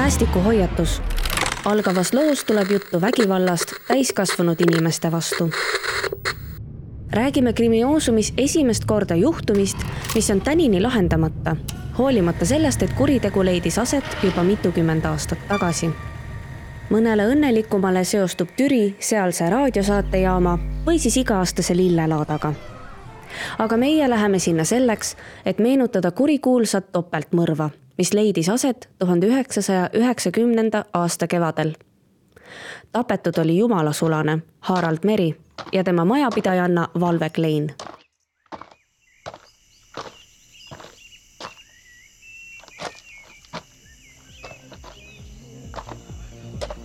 Päästikuhoiatus. Algavas loos tuleb juttu vägivallast täiskasvanud inimeste vastu. Räägime krimioosumis esimest korda juhtumist, mis on tänini lahendamata, hoolimata sellest, et kuritegu leidis aset juba mitukümmend aastat tagasi. Mõnele õnnelikumale seostub Türi sealse raadiosaatejaama või siis iga-aastase lillelaadaga. Aga meie läheme sinna selleks, et meenutada kurikuulsat topeltmõrva, mis leidis aset 1990. aasta kevadel. Tapetud oli jumalasulane Harald Meri ja tema majapidajanna Valve Klein.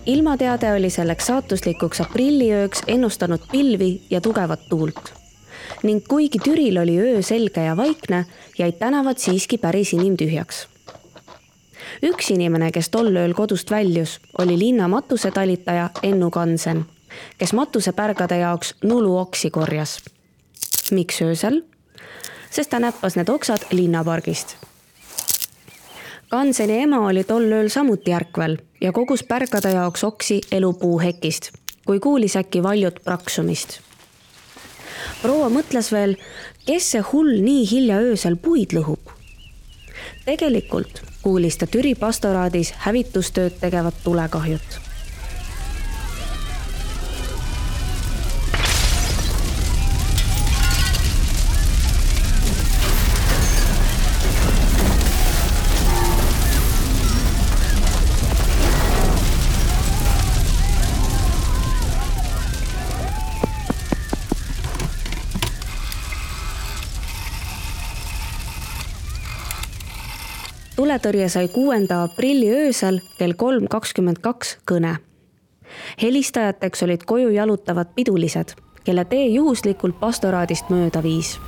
Ilmateade oli selleks saatuslikuks aprilliööks ennustanud pilvi ja tugevat tuult. Ning kuigi Türil oli öö selge ja vaikne, jäid tänavad siiski päris inimtühjaks. Üks inimene, kes tol ööl kodust väljus, oli linna matusetalitaja Ennu Kansen, kes matusepärgade jaoks nuluoksi korjas. Miks öösel? Sest ta näppas need oksad linnapargist. Kanseni ema oli tol ööl samuti ärkvel ja kogus pärgade jaoks oksi elupuuhekist, kui kuulis äkki valjut praksumist. Proua mõtles veel, kes see hull nii hilja öösel puid lõhub. Tegelikult kuulis ta Türi pastoraadis hävitustööd tegevat tulekahjut. Tuletõrje sai 6. aprilli öösel kell 3:22 kõne. Helistajateks olid koju jalutavad pidulised, kelle tee juhuslikult pastoraadist mööda viis.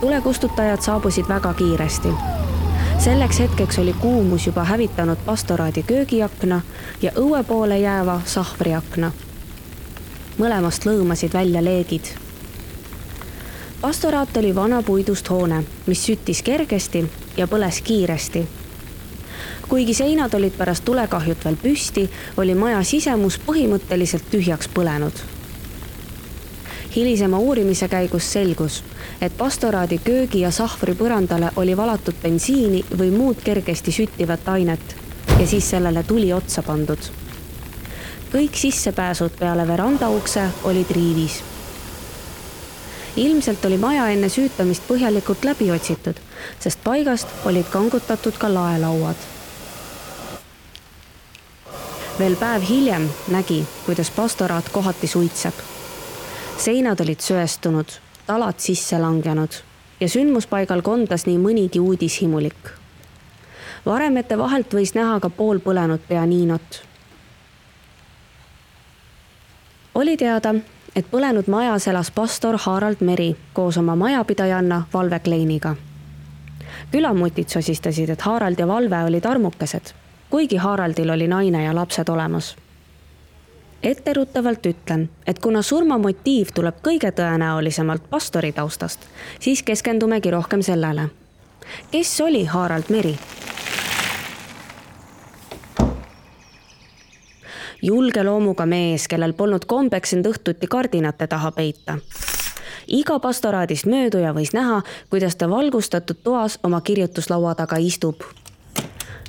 Tulekustutajad saabusid väga kiiresti. Selleks hetkeks oli kuumus juba hävitanud pastoraadi köögiakna ja õue poole jääva sahvriakna. Mõlemast lõõmasid välja leegid. Pastoraat oli vana puidust hoone, mis süttis kergesti ja põles kiiresti. Kuigi seinad olid pärast tulekahjut veel püsti, oli maja sisemus põhimõtteliselt tühjaks põlenud. Hilisema uurimise käigus selgus, et pastoraadi köögi ja sahvri põrandale oli valatud bensiini või muud kergesti süttivat ainet ja siis sellele tuli otsa pandud. Kõik sissepääsud peale verandaukse olid riivis. Ilmselt oli maja enne süütamist põhjalikult läbi otsitud, sest paigast olid kangutatud ka laelauad. Veel päev hiljem nägi, kuidas pastoraat kohati suitseb. Seinad olid söestunud, talad sisse langenud ja sündmuspaigal kondas nii mõnigi uudishimulik. Varemete vahelt võis näha ka pool põlenud pianinot. Oli teada, et põlenud majas elas pastor Harald Meri koos oma majapidajanna Valve Kleiniga. Külamutid sosistasid, et Harald ja Valve olid armukesed, kuigi Haraldil oli naine ja lapsed olemas. Etteruttavalt ütlen, et kuna surmamotiiv tuleb kõige tõenäolisemalt pastori taustast, siis keskendumegi rohkem sellele. Kes oli Harald Meri? Julge loomuga mees, kellel polnud kombeks end õhtuti kardinate taha peita. Iga pastoraadist mööduja võis näha, kuidas ta valgustatud toas oma kirjutuslaua taga istub.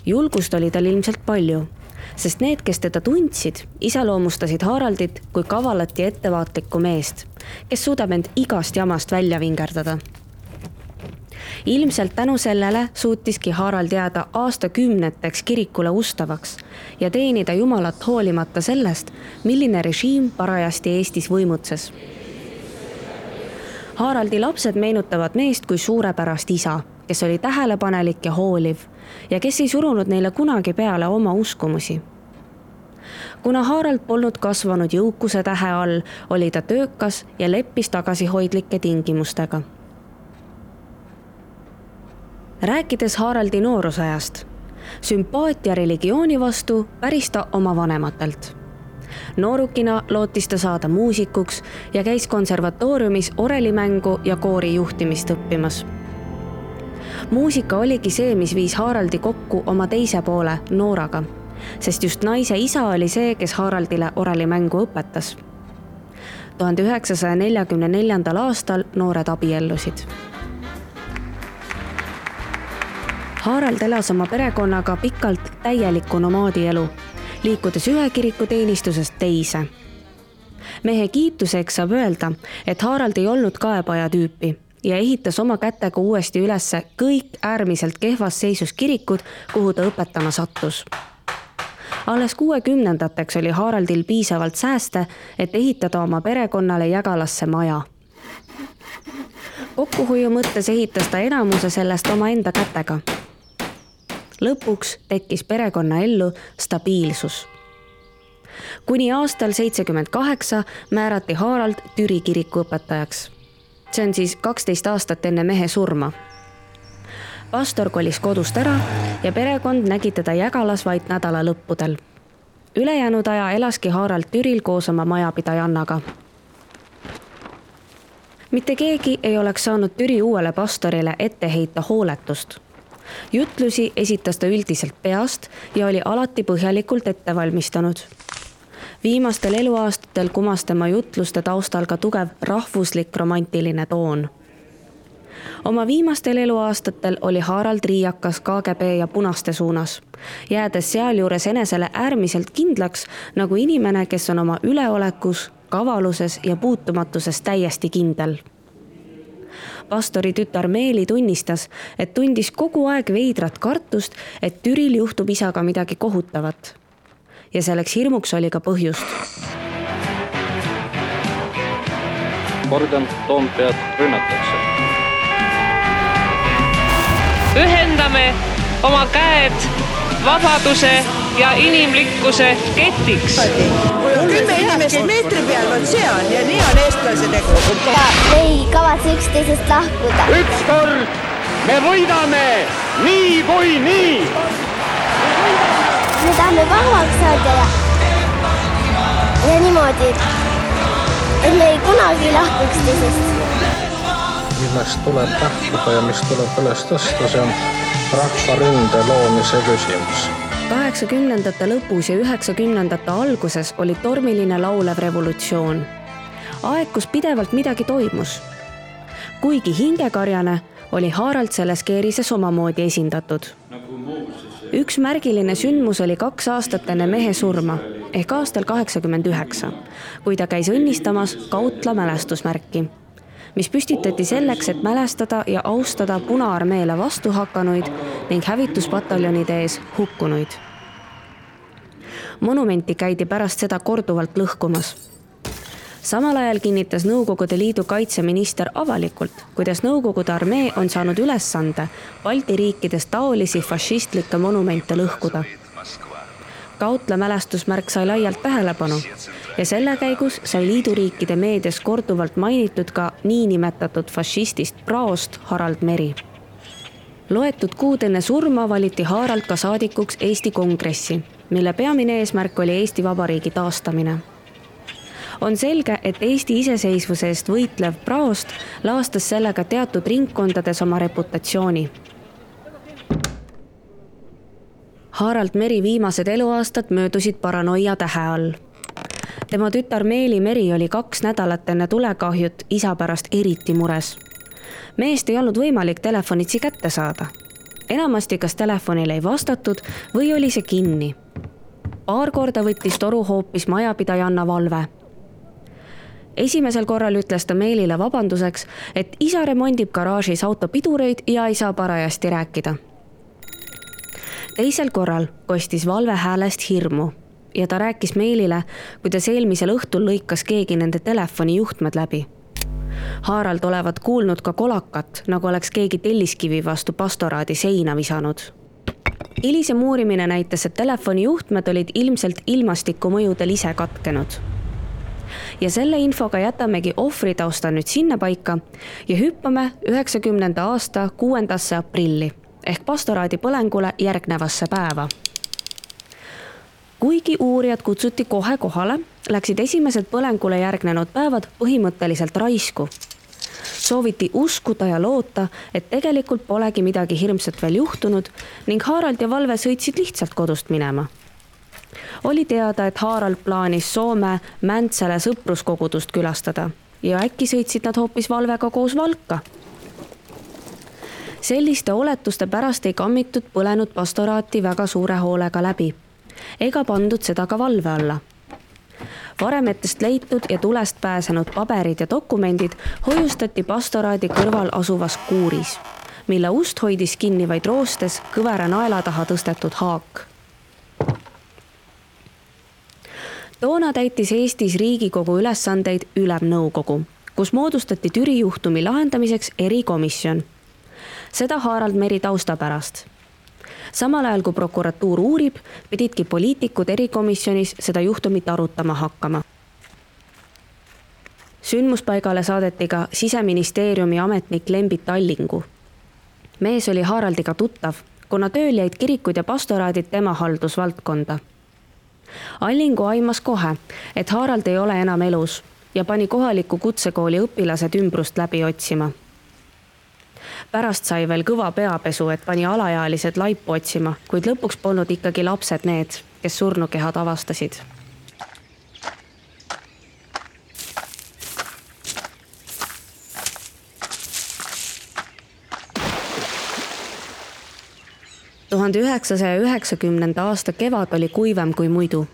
Julgust oli tal ilmselt palju, sest need, kes teda tundsid, iseloomustasid Haraldit kui kavalat ja ettevaatlikku meest, kes suudab end igast jamast välja vingerdada. Ilmselt tänu sellele suutiski Harald jääda aastakümneteks kirikule ustavaks ja teenida Jumalat hoolimata sellest, milline režiim parajasti Eestis võimutses. Haraldi lapsed meenutavad meest kui suurepärast isa, kes oli tähelepanelik ja hooliv ja kes ei surunud neile kunagi peale oma uskumusi. Kuna Harald polnud kasvanud jõukuse tähe all, oli ta töökas ja leppis tagasihoidlike tingimustega. Rääkides Haraldi noorusajast, sümpaatia religiooni vastu päris ta oma vanematelt. Noorukina lootis ta saada muusikuks ja käis konservatooriumis orelimängu ja koori juhtimist õppimas. Muusika oligi see, mis viis Haraldi kokku oma teise poole, Nooraga, sest just naise isa oli see, kes Haraldile orellimängu õpetas. 1944. aastal noored abiellusid. Harald elas oma perekonnaga pikalt täielikku nomaadielu, liikudes ühe kiriku teenistusest teise. Mehe kiituseks saab öelda, et Harald ei olnud kaebaja tüüpi ja ehitas oma kätega uuesti ülesse kõik äärmiselt kehvas seisus kirikud, kuhu ta õpetama sattus. Alles 60-ndateks oli Haraldil piisavalt sääste, et ehitada oma perekonnale Jägalasse maja. Kokkuhoiu mõttes ehitas ta enamuse sellest oma enda kätega. Lõpuks tekkis perekonna ellu stabiilsus. Kuni aastal 78 määrati Harald Türi kiriku õpetajaks. See on siis 12 aastat enne mehe surma. Pastor kolis kodust ära ja perekond nägi teda Jägalas vaid nädala lõppudel. Ülejäänud aja elaski Harald Türil koos oma majapidajannaga. Mitte keegi ei oleks saanud Türi uuele pastorile ette heita hooletust. Jutlusi esitas ta üldiselt peast ja oli alati põhjalikult ette valmistanud. Viimastel eluaastatel kumas tema jutluste taustal ka tugev rahvuslik romantiline toon. Oma viimastel eluaastatel oli Harald riiakas KGB ja punaste suunas, jäädes sealjuures enesele äärmiselt kindlaks nagu inimene, kes on oma üleolekus, kavaluses ja puutumatuses täiesti kindel. Pastori tütar Meeli tunnistas, et tundis kogu aeg veidrat kartust, et Türil juhtub isaga midagi kohutavat. Ja selleks hirmuks oli ka põhjust. Kordan, Toompead rünnatakse. Ühendame oma käed vabaduse ja inimlikkuse ketiks. 10 inimest meetri peal on see on ja nii on eestlase tegu. Ja ei kavatse üksteisest lahkuda. Ükskord me võidame nii kui nii. Me tahame vabaks saada ja niimoodi, et me ei kunagi lahku üksteisest. Millest tuleb lähtuda ja mis tuleb üles tõsta, see on rahvaründe loomise küsimus. 80-ndate lõpus ja 90-ndate alguses oli tormiline laulev revolutsioon. Aeg, kus pidevalt midagi toimus. Kuigi hingekarjane, oli Harald selles keerises omamoodi esindatud. Üks märgiline sündmus oli 2 aastat enne mehe surma, ehk aastal 89, kui ta käis õnnistamas Kautla mälestusmärki, mis püstitati selleks, et mälestada ja austada Punaarmeele vastu hakkanuid ning hävituspataljonide ees hukkunuid. Monumenti käidi pärast seda korduvalt lõhkumas. Samal ajal kinnitas Nõukogude Liidu kaitseminister avalikult, kuidas Nõukogude armee on saanud ülesande Balti riikides taolisi fašistlikke monumente lõhkuda. Kautla mälestusmärk sai laialt tähelepanu ja selle käigus sai liiduriikide meedias korduvalt mainitud ka niinimetatud fašistist praost Harald Meri. Loetud kuud enne surma valiti Harald ka saadikuks Eesti Kongressi, mille peamine eesmärk oli Eesti Vabariigi taastamine. On selge, et Eesti iseseisvuse eest võitlev praost laastas sellega teatud ringkondades oma reputatsiooni. Harald Meri viimased eluaastad möödusid paranoia tähe all. Tema tütar Meeli Meri oli 2 nädalat enne tulekahjut isa pärast eriti mures. Meest ei olnud võimalik telefonitsi kätte saada. Enamasti kas telefonile ei vastatud või oli see kinni. Paar korda võttis toru hoopis majapidajanna Valve. Esimesel korral ütles ta Meelile vabanduseks, et isa remondib garaažis autopidureid ja ei saa parajasti rääkida. Teisel korral kostis Valve häälest hirmu ja ta rääkis Meelile, kuidas eelmisel õhtul lõikas keegi nende telefoni juhtmed läbi. Harald olevat kuulnud ka kolakat, nagu oleks keegi telliskivi vastu pastoraadi seina visanud. Hilisem uurimine näitas, et telefoni juhtmed olid ilmselt ilmastiku mõjudel ise katkenud. Ja selle infoga jätamegi ohvritausta nüüd sinna paika ja hüppame 90. aasta 6. aprilli ehk pastoraadi põlengule järgnevasse päeva. Kuigi uurijad kutsuti kohe kohale, läksid esimesed põlengule järgnenud päevad põhimõtteliselt raisku. Sooviti uskuda ja loota, et tegelikult polegi midagi hirmsat veel juhtunud ning Harald ja Valve sõitsid lihtsalt kodust minema. Oli teada, et Harald plaanis Soome Mäntsele sõpruskogudust külastada ja äkki sõitsid nad hoopis Valvega koos Valka. Selliste oletuste pärast ei kammitud põlenud pastoraati väga suure hoolega läbi ega pandud seda ka valve alla. Varemetest leitud ja tulest pääsenud paberid ja dokumendid hoiustati pastoraadi kõrval asuvas kuuris, mille ust hoidis kinni vaid roostes kõvera naela taha tõstetud haak. Toona täitis Eestis Riigikogu ülesandeid Ülemnõukogu, kus moodustati Türi juhtumi lahendamiseks erikomisjon. Seda Harald Meri tausta pärast. Samal ajal kui prokuratuur uurib, pididki poliitikud erikomisjonis seda juhtumit arutama hakkama. Sündmuspaigale saadeti ka Siseministeeriumi ametnik Lembit Allingu. Mees oli Haraldiga tuttav, kuna tööl jäid kirikud ja pastoraadid tema haldusvaldkonda. Allingu aimas kohe, et Harald ei ole enam elus ja pani kohaliku kutsekooli õpilased ümbrust läbi otsima. Pärast sai veel kõva peapesu, et pani alaealised laipu otsima, kuid lõpuks polnud ikkagi lapsed need, kes surnukehad avastasid. ...1990. aasta kevad oli kuivem kui muidu.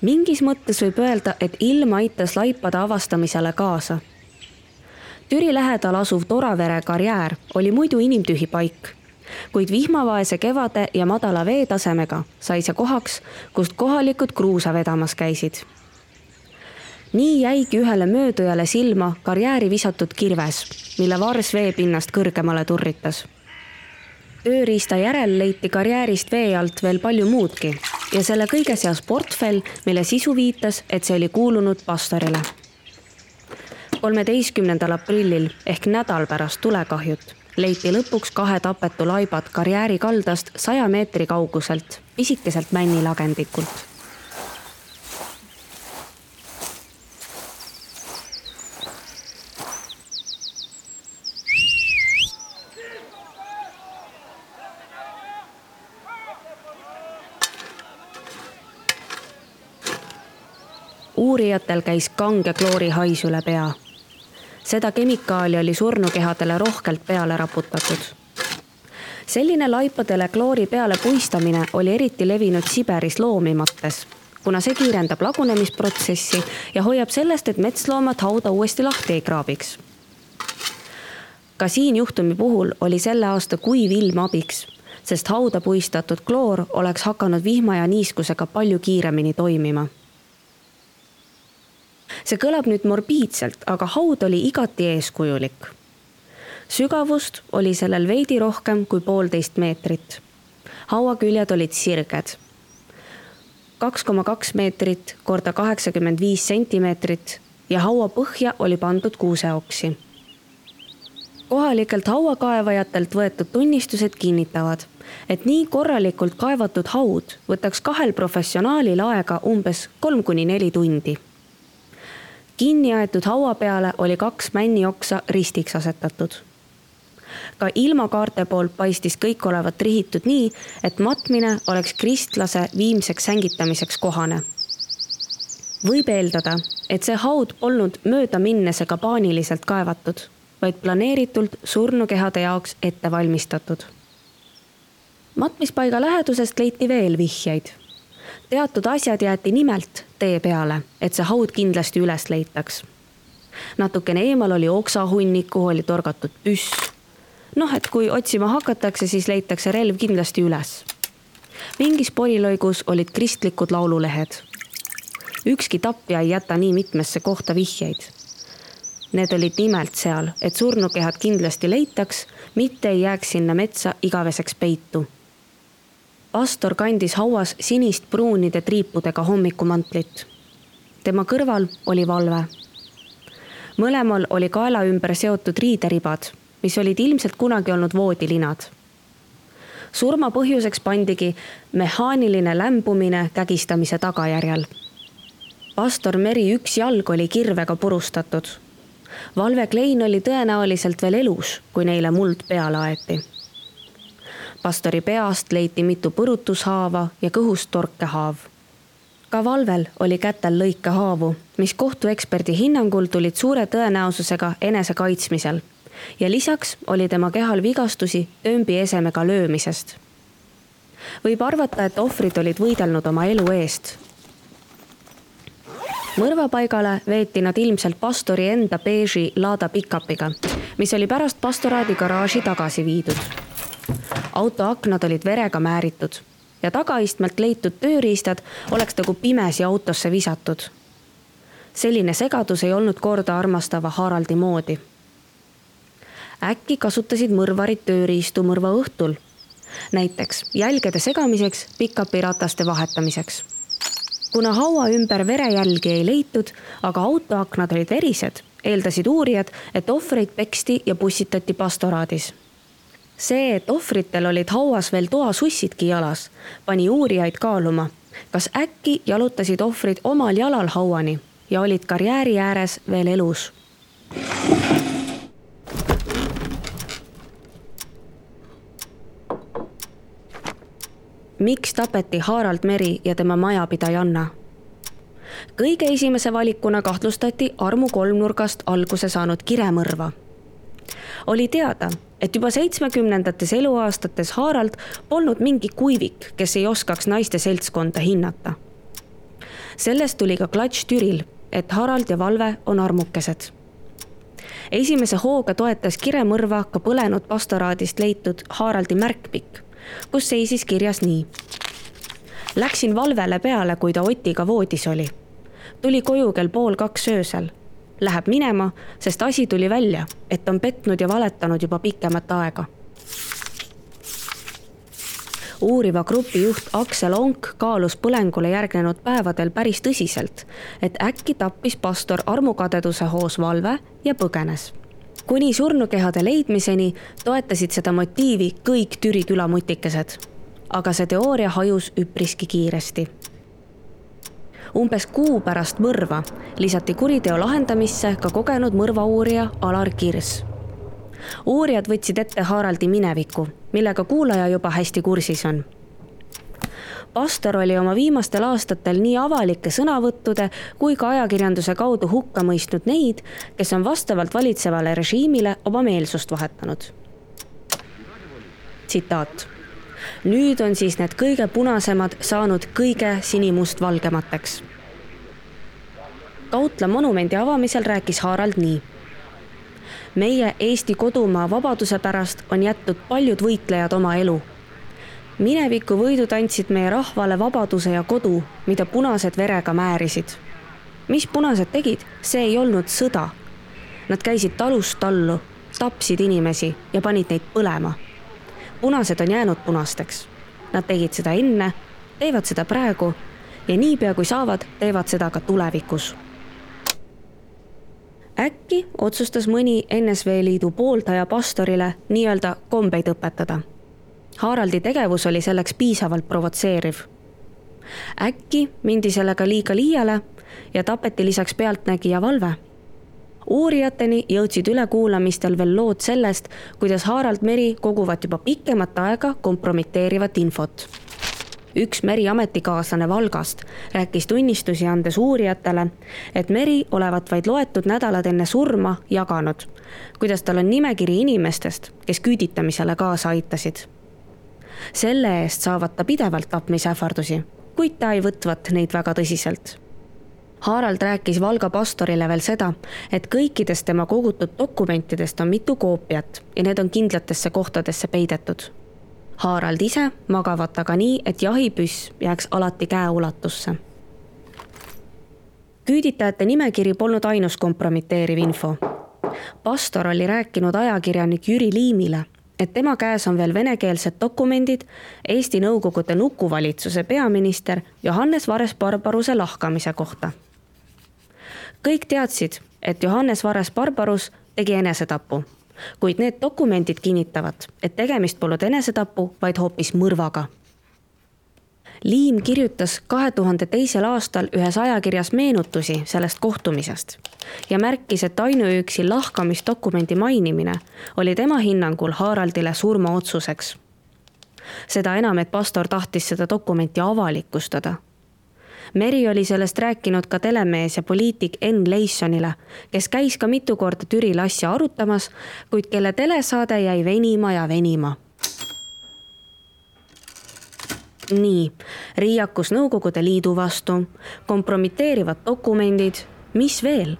Mingis mõttes võib öelda, et ilm aitas laipade avastamisele kaasa. Türi lähedal asuv Toravere karjäär oli muidu inimtühi paik, kuid vihmavaese kevade ja madala veetasemega sai see kohaks, kust kohalikud kruusa vedamas käisid. Nii jäigi ühele möödujale silma karjääri visatud kirves, mille vars veepinnast kõrgemale turritas. Tööriista järel leiti karjäärist vee alt veel palju muudki ja selle kõige seas portfell, mille sisu viitas, et see oli kuulunud pastorile. 13. aprillil ehk nädal pärast tulekahjut leiti lõpuks 2 tapetu laibad karjääri kaldast 100 meetri kauguselt, pisikeselt männilagendikult. Uurijatel käis kange kloori hais üle pea. Seda kemikaali oli surnukehadele rohkelt peale raputatud. Selline laipadele kloori peale puistamine oli eriti levinud Siberis loomimates, kuna see kiirendab lagunemisprotsessi ja hoiab sellest, et metsloomad hauda uuesti lahti ei kraabiks. Ka siin juhtumi puhul oli selle aasta kuiv ilm abiks, sest hauda puistatud kloor oleks hakanud vihma ja niiskusega palju kiiremini toimima. See kõlab nüüd morbiidselt, aga haud oli igati eeskujulik. Sügavust oli sellel veidi rohkem kui 1,5 meetrit. Hauaküljed olid sirged. 2,2 meetrit korda 85 sentimeetrit ja haua põhja oli pandud kuuseoksi. Kohalikelt hauakaevajatelt võetud tunnistused kinnitavad, et nii korralikult kaevatud haud võtaks 2 professionaalil aega umbes 3-4 tundi. Kinni aetud haua peale oli 2 männioksa ristiks asetatud. Ka ilmakaarte poolt paistis kõik olevat rihitud nii, et matmine oleks kristlase viimseks sängitamiseks kohane. Võib eeldada, et see haud polnud mööda minnesega paaniliselt kaevatud, vaid planeeritult surnukehade jaoks ette valmistatud. Matmispaiga lähedusest leiti veel vihjeid. Teatud asjad jäeti nimelt tee peale, et see haud kindlasti üles leitaks. Natukene eemal oli oksahunnik, kuhu oli torgatud püss. Et kui otsima hakatakse, siis leitakse relv kindlasti üles. Mingis porilõigus olid kristlikud laululehed. Ükski tapja ei jäta nii mitmesse kohta vihjeid. Need olid nimelt seal, et surnukehad kindlasti leitaks, mitte ei jääks sinna metsa igaveseks peitu. Pastor kandis hauas sinist pruunide triipudega hommikumantlit. Tema kõrval oli Valve. Mõlemal oli kaela ümber seotud riideribad, mis olid ilmselt kunagi olnud voodilinad. Surma põhjuseks pandigi mehaaniline lämbumine kägistamise tagajärjel. Pastor Meri üks jalg oli kirvega purustatud. Valve Klein oli tõenäoliselt veel elus, kui neile muld peale aeti. Pastori peast leiti mitu põrutushaava ja kõhust torkehaav. Ka Valvel oli kätel lõikehaavu, mis kohtueksperdi hinnangul tulid suure tõenäosusega enese kaitsmisel ja lisaks oli tema kehal vigastusi öömbi esemega löömisest. Võib arvata, et ohvrid olid võidelnud oma elu eest. Mõrvapaigale veeti nad ilmselt pastori enda beeži Lada pickupiga, mis oli pärast pastoraadi garaaži tagasi viidud. Auto aknad olid verega määritud ja tagaistmelt leitud tööriistad oleks nagu pimesi autosse visatud. Selline segadus ei olnud korda armastava Haraldi moodi. Äkki kasutasid mõrvarid tööriistu mõrva õhtul, näiteks jälgede segamiseks, pickupi rataste vahetamiseks. Kuna haua ümber verejälgi ei leitud, aga autoaknad olid verised, eeldasid uurijad, et ohvreid peksti ja pussitati pastoraadis. See, et ohvritel olid hauas veel toasussidki jalas, pani uurijaid kaaluma, kas äkki jalutasid ohvrid omal jalal hauani ja olid karjääri ääres veel elus. Miks tapeti Harald Meri ja tema majapidajanna? Kõige esimese valikuna kahtlustati armu kolmnurgast alguse saanud kiremõrva. Oli teada, et juba 70-ndates eluaastates Harald polnud mingi kuivik, kes ei oskaks naiste seltskonda hinnata. Sellest tuli ka klatš Türil, et Harald ja Valve on armukesed. Esimese hooga toetas kiremõrva ka põlenud pastoraadist leitud Haraldi märkpikk, kus seisis kirjas nii. Läksin Valvele peale, kui ta Otiga voodis oli. Tuli koju kell 1:30 öösel. Läheb minema, sest asi tuli välja, et on petnud ja valetanud juba pikemat aega. Uuriva grupi juht Aksel Onk kaalus põlengule järgnenud päevadel päris tõsiselt, et äkki tappis pastor armukadeduse hoos Valve ja põgenes. Kuni surnukehade leidmiseni toetasid seda motiivi kõik Türi külamutikesed, aga see teooria hajus üpriski kiiresti. Umbes kuu pärast mõrva lisati kuriteo lahendamisse ka kogenud mõrvauurija Alar Kirs. Uurijad võtsid ette Haraldi mineviku, millega kuulaja juba hästi kursis on. Pastor oli oma viimastel aastatel nii avalike sõnavõttude kui ka ajakirjanduse kaudu hukka mõistnud neid, kes on vastavalt valitsevale režiimile oma meelsust vahetanud. Tsitaat. Nüüd on siis need kõige punasemad saanud kõige sinimust-valgemateks. Kautla monumendi avamisel rääkis Harald nii. Meie Eesti kodumaa vabaduse pärast on jättud paljud võitlejad oma elu. Mineviku võidud andsid meie rahvale vabaduse ja kodu, mida punased verega määrisid. Mis punased tegid, see ei olnud sõda. Nad käisid talust tallu, tapsid inimesi ja panid neid põlema. Punased on jäänud punasteks. Nad tegid seda enne, teevad seda praegu ja niipea kui saavad, teevad seda ka tulevikus. Äkki otsustas mõni NSV Liidu pooldaja pastorile nii-öelda kombeid õpetada. Haraldi tegevus oli selleks piisavalt provotseeriv. Äkki mindi sellega liiga liiale ja tapeti lisaks pealtnägija Valve. Uurijateni jõudsid ülekuulamistel veel lood sellest, kuidas Harald Meri koguvad juba pikemat aega kompromiteerivat infot. Üks Meri ametikaaslane Valgast rääkis tunnistusi andes uurijatele, et Meri olevat vaid loetud nädalad enne surma jaganud, kuidas tal on nimekiri inimestest, kes küüditamisele kaasa aitasid. Selle eest saavad ta pidevalt tapmisähvardusi, kuid ta ei võtvat neid väga tõsiselt. Harald rääkis Valga pastorile veel seda, et kõikidest tema kogutud dokumentidest on mitu koopiat ja need on kindlatesse kohtadesse peidetud. Harald ise magavat aga nii, et jahipüss jääks alati käeulatusse. Küüditajate nimekiri polnud ainus kompromiteeriv info. Pastor oli rääkinud ajakirjanik Jüri Liimile, et tema käes on veel venekeelsed dokumendid Eesti Nõukogude nukuvalitsuse peaminister Johannes Vares-Barbaruse lahkamise kohta. Kõik teadsid, et Johannes Vares-Barbarus tegi enesetapu, kuid need dokumendid kinnitavad, et tegemist polnud enesetapu, vaid hoopis mõrvaga. Liim kirjutas 2002. aastal ühes ajakirjas meenutusi sellest kohtumisest ja märkis, et ainuüksi lahkamisdokumendi mainimine oli tema hinnangul Haraldile surmaotsuseks. Seda enam, et pastor tahtis seda dokumenti avalikustada. Meri oli sellest rääkinud ka telemees ja poliitik Enn Leissonile, kes käis ka mitu korda Türil asja arutamas, kuid kelle telesaade jäi venima ja venima. Nii, riiakus Nõukogude Liidu vastu, kompromiteerivad dokumendid, mis veel?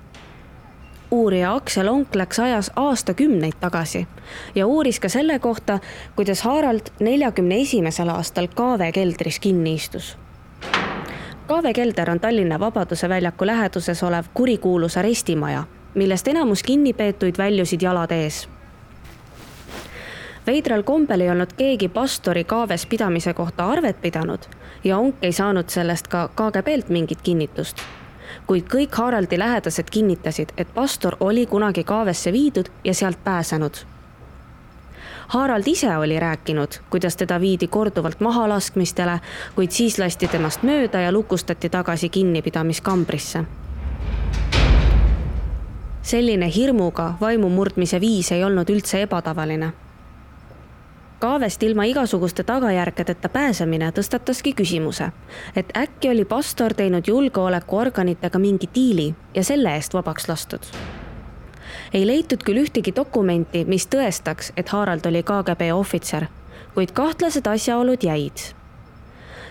Uurija Aksel Onk läks ajas aastakümneid tagasi ja uuris ka selle kohta, kuidas Harald 41. aastal Kaave keldris kinni istus. Kaave kelder on Tallinna Vabaduse väljaku läheduses olev kurikuulus arestimaja, millest enamus kinnipeetuid väljusid jalad ees. Veidral kombel ei olnud keegi pastori Kaaves pidamise kohta arvet pidanud ja Onk ei saanud sellest ka KGB-lt mingit kinnitust. Kuid kõik Haraldi lähedased kinnitasid, et pastor oli kunagi Kaavesse viidud ja sealt pääsenud. Harald ise oli rääkinud, kuidas teda viidi korduvalt mahalaskmistele, kuid siis lasti temast mööda ja lukustati tagasi kinnipidamiskambrisse. Selline hirmuga vaimu murdmise viis ei olnud üldse ebatavaline. Kaavest ilma igasuguste tagajärgedeta pääsemine tõstataski küsimuse, et äkki oli pastor teinud julgeolekuorganitega mingi diili ja selle eest vabaks lastud. Ei leitud küll ühtegi dokumenti, mis tõestaks, et Harald oli KGB ohvitser, kuid kahtlased asjaolud jäid.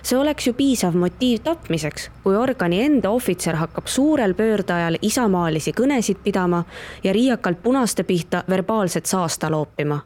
See oleks ju piisav motiiv tapmiseks, kui organi enda ohvitser hakkab suurel pöördajal isamaalisi kõnesid pidama ja riiakalt punaste pihta verbaalset saasta loopima.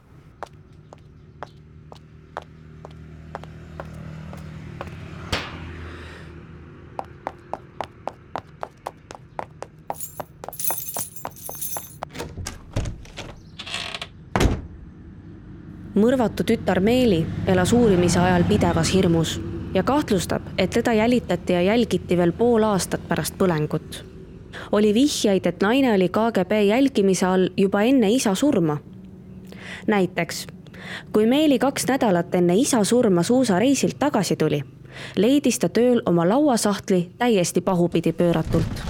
Mõrvatu tütar Meeli elas uurimise ajal pidevas hirmus ja kahtlustab, et teda jälitati ja jälgiti veel pool aastat pärast põlengut. Oli vihjaid, et naine oli KGB jälgimise all juba enne isa surma. Näiteks, kui Meeli 2 nädalat enne isa surma suusareisilt tagasi tuli, leidis ta tööl oma lauasahtli täiesti pahupidi pööratult.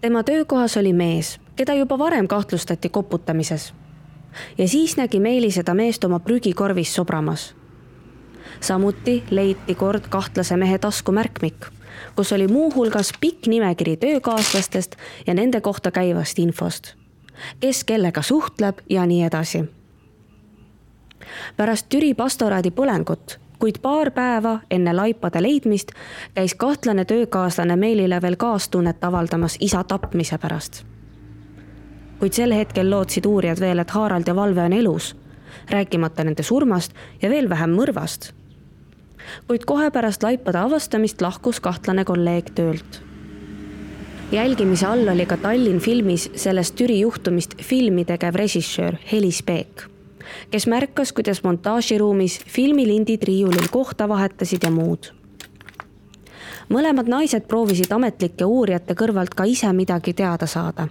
Tema töökohas oli mees, keda juba varem kahtlustati koputamises. Ja siis nägi Meeli seda meest oma prügikorvis sobramas. Samuti leiti kord kahtlase mehe taskumärkmik, kus oli muu hulgas pikk nimekiri töökaaslastest ja nende kohta käivast infost. Kes kellega suhtleb ja nii edasi. Pärast Türi pastoraadi põlengut, kuid paar päeva enne laipade leidmist, käis kahtlane töökaaslane Meelile veel kaastunnet avaldamas isa tapmise pärast. Kuid sel hetkel lootsid uurijad veel, et Harald ja Valve on elus, rääkimata nende surmast ja veel vähem mõrvast. Kuid kohe pärast laipade avastamist lahkus kahtlane kolleeg töölt. Jälgimise all oli ka Tallinn filmis sellest Türi juhtumist filmi tegev režissöör Helis Peek, kes märkas, kuidas montaažiruumis filmilindid riiulil kohta vahetasid ja muud. Mõlemad naised proovisid ametlike uurijate kõrvalt ka ise midagi teada saada.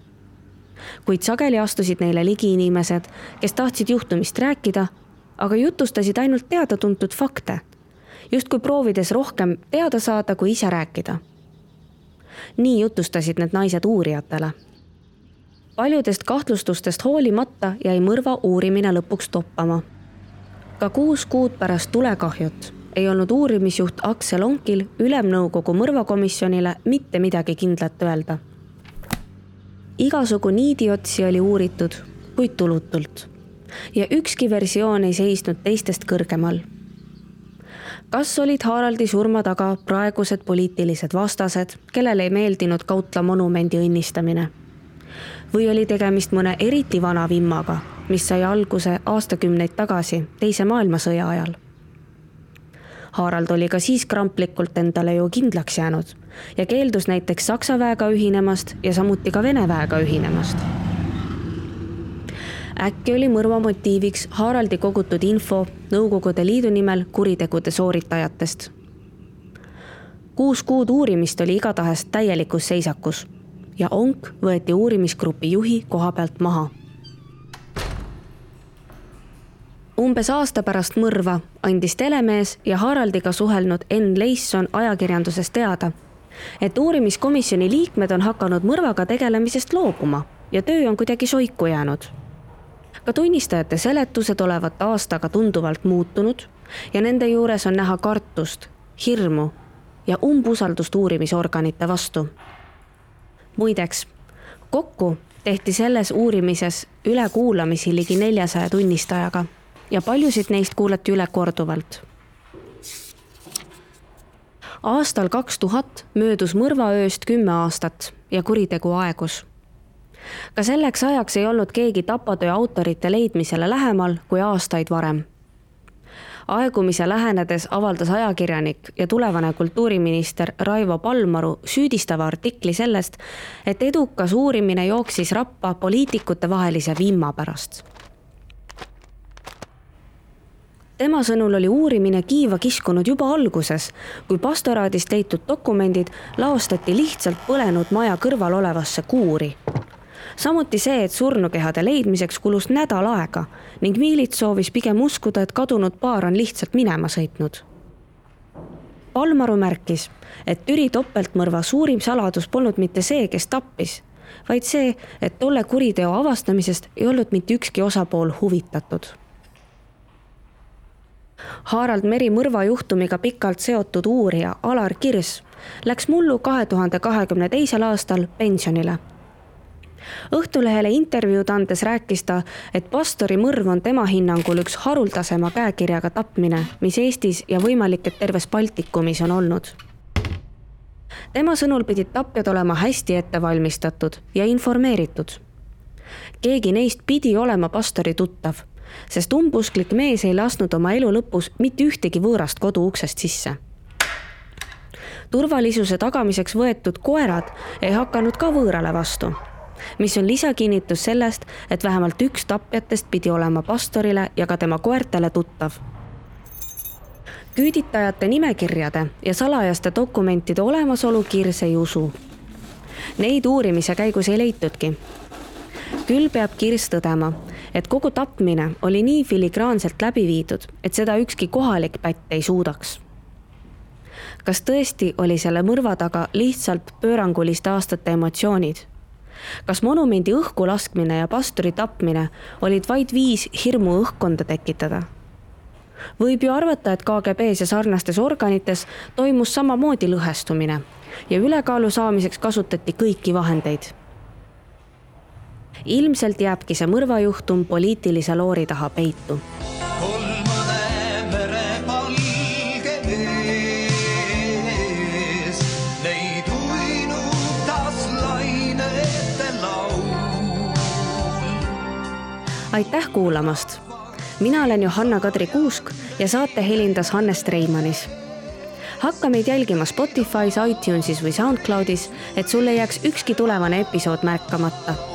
Kuid sageli astusid neile ligi inimesed, kes tahtsid juhtumist rääkida, aga jutustasid ainult teada-tuntud fakte, justkui proovides rohkem teada saada, kui ise rääkida. Nii jutustasid need naised uurijatele. Paljudest kahtlustustest hoolimata jäi mõrva uurimine lõpuks toppama. Ka 6 kuud pärast tulekahjut ei olnud uurimisjuht Aksel Onkil Ülemnõukogu mõrvakomisjonile mitte midagi kindlat öelda. Igasugu niidiotsi oli uuritud, kuid tulutult. Ja ükski versioon ei seisnud teistest kõrgemal. Kas olid Haraldi surma taga praegused poliitilised vastased, kellele ei meeldinud Kautla monumendi õnnistamine? Või oli tegemist mõne eriti vana vimmaga, mis sai alguse aastakümneid tagasi, Teise maailmasõja ajal? Harald oli ka siis kramplikult endale ju kindlaks jäänud ja keeldus näiteks Saksa väega ühinemast ja samuti ka Vene väega ühinemast. Äkki oli mõrva motiiviks Haraldi kogutud info Nõukogude Liidu nimel kuritegude sooritajatest. 6 kuud uurimist oli igatahes täielikus seisakus ja Onk võeti uurimisgrupi juhi koha pealt maha. Umbes aasta pärast mõrva andis telemees ja Haraldiga suhelnud Enn Leisson ajakirjanduses teada, et uurimiskomisjoni liikmed on hakanud mõrvaga tegelemisest loobuma ja töö on kuidagi soiku jäänud. Ka tunnistajate seletused olevat aastaga tunduvalt muutunud ja nende juures on näha kartust, hirmu ja umbusaldust uurimisorganite vastu. Muideks, kokku tehti selles uurimises ülekuulamisi ligi 400 tunnistajaga ja paljusid neist kuulati üle korduvalt. Aastal 2000 möödus mõrvaööst 10 aastat ja kuritegu aegus. Ka selleks ajaks ei olnud keegi tapatöö autorite leidmisele lähemal kui aastaid varem. Aegumise lähenedes avaldas ajakirjanik ja tulevane kultuuriminister Raivo Palmaru süüdistava artikli sellest, et edukas uurimine jooksis rappa poliitikute vahelise vimma pärast. Tema sõnul oli uurimine kiiva kiskunud juba alguses, kui pastoraadist leitud dokumendid laostati lihtsalt põlenud maja kõrval olevasse kuuri. Samuti see, et surnukehade leidmiseks kulus nädal aega ning miilits soovis pigem uskuda, et kadunud paar on lihtsalt minema sõitnud. Palmaru märkis, et Türi topeltmõrva suurim saladus polnud mitte see, kes tappis, vaid see, et tolle kuriteo avastamisest ei olnud mitte ükski osapool huvitatud. Harald Meri mõrvajuhtumiga pikalt seotud uurija Alar Kirs läks mullu 2022. aastal pensionile. Õhtulehele intervjuud andes rääkis ta, et pastori mõrv on tema hinnangul üks haruldasema käekirjaga tapmine, mis Eestis ja võimalik, et terves Baltikumis on olnud. Tema sõnul pidid tapjad olema hästi ettevalmistatud ja informeeritud. Keegi neist pidi olema pastori tuttav, sest umbusklik mees ei lasknud oma elu lõpus mitte ühtegi võõrast kodu uksest sisse. Turvalisuse tagamiseks võetud koerad ei hakanud ka võõrale vastu, mis on lisakinnitus sellest, et vähemalt üks tapjatest pidi olema pastorile ja ka tema koertele tuttav. Küüditajate nimekirjade ja salajaste dokumentide olemasolu Kirs ei usu. Neid uurimise käigus ei leitudki. Küll peab Kirs tõdema, et kogu tapmine oli nii filigraanselt läbi viidud, et seda ükski kohalik pätt ei suudaks. Kas tõesti oli selle mõrva taga lihtsalt pööranguliste aastate emotsioonid? Kas monumendi õhku laskmine ja pastori tapmine olid vaid viis hirmu õhkkonda tekitada? Võib ju arvata, et KGB-s ja sarnastes organites toimus samamoodi lõhestumine ja ülekaalu saamiseks kasutati kõiki vahendeid. Ilmselt jääbki see mõrvajuhtum poliitilise loori taha peitu. Aitäh kuulamast! Mina olen Johanna-Kadri Kuusk ja saate helindas Hannes Treimanis. Hakka meid jälgima Spotify's, iTunesis või SoundCloudis, et sulle jääks ükski tulevane episood märkamata.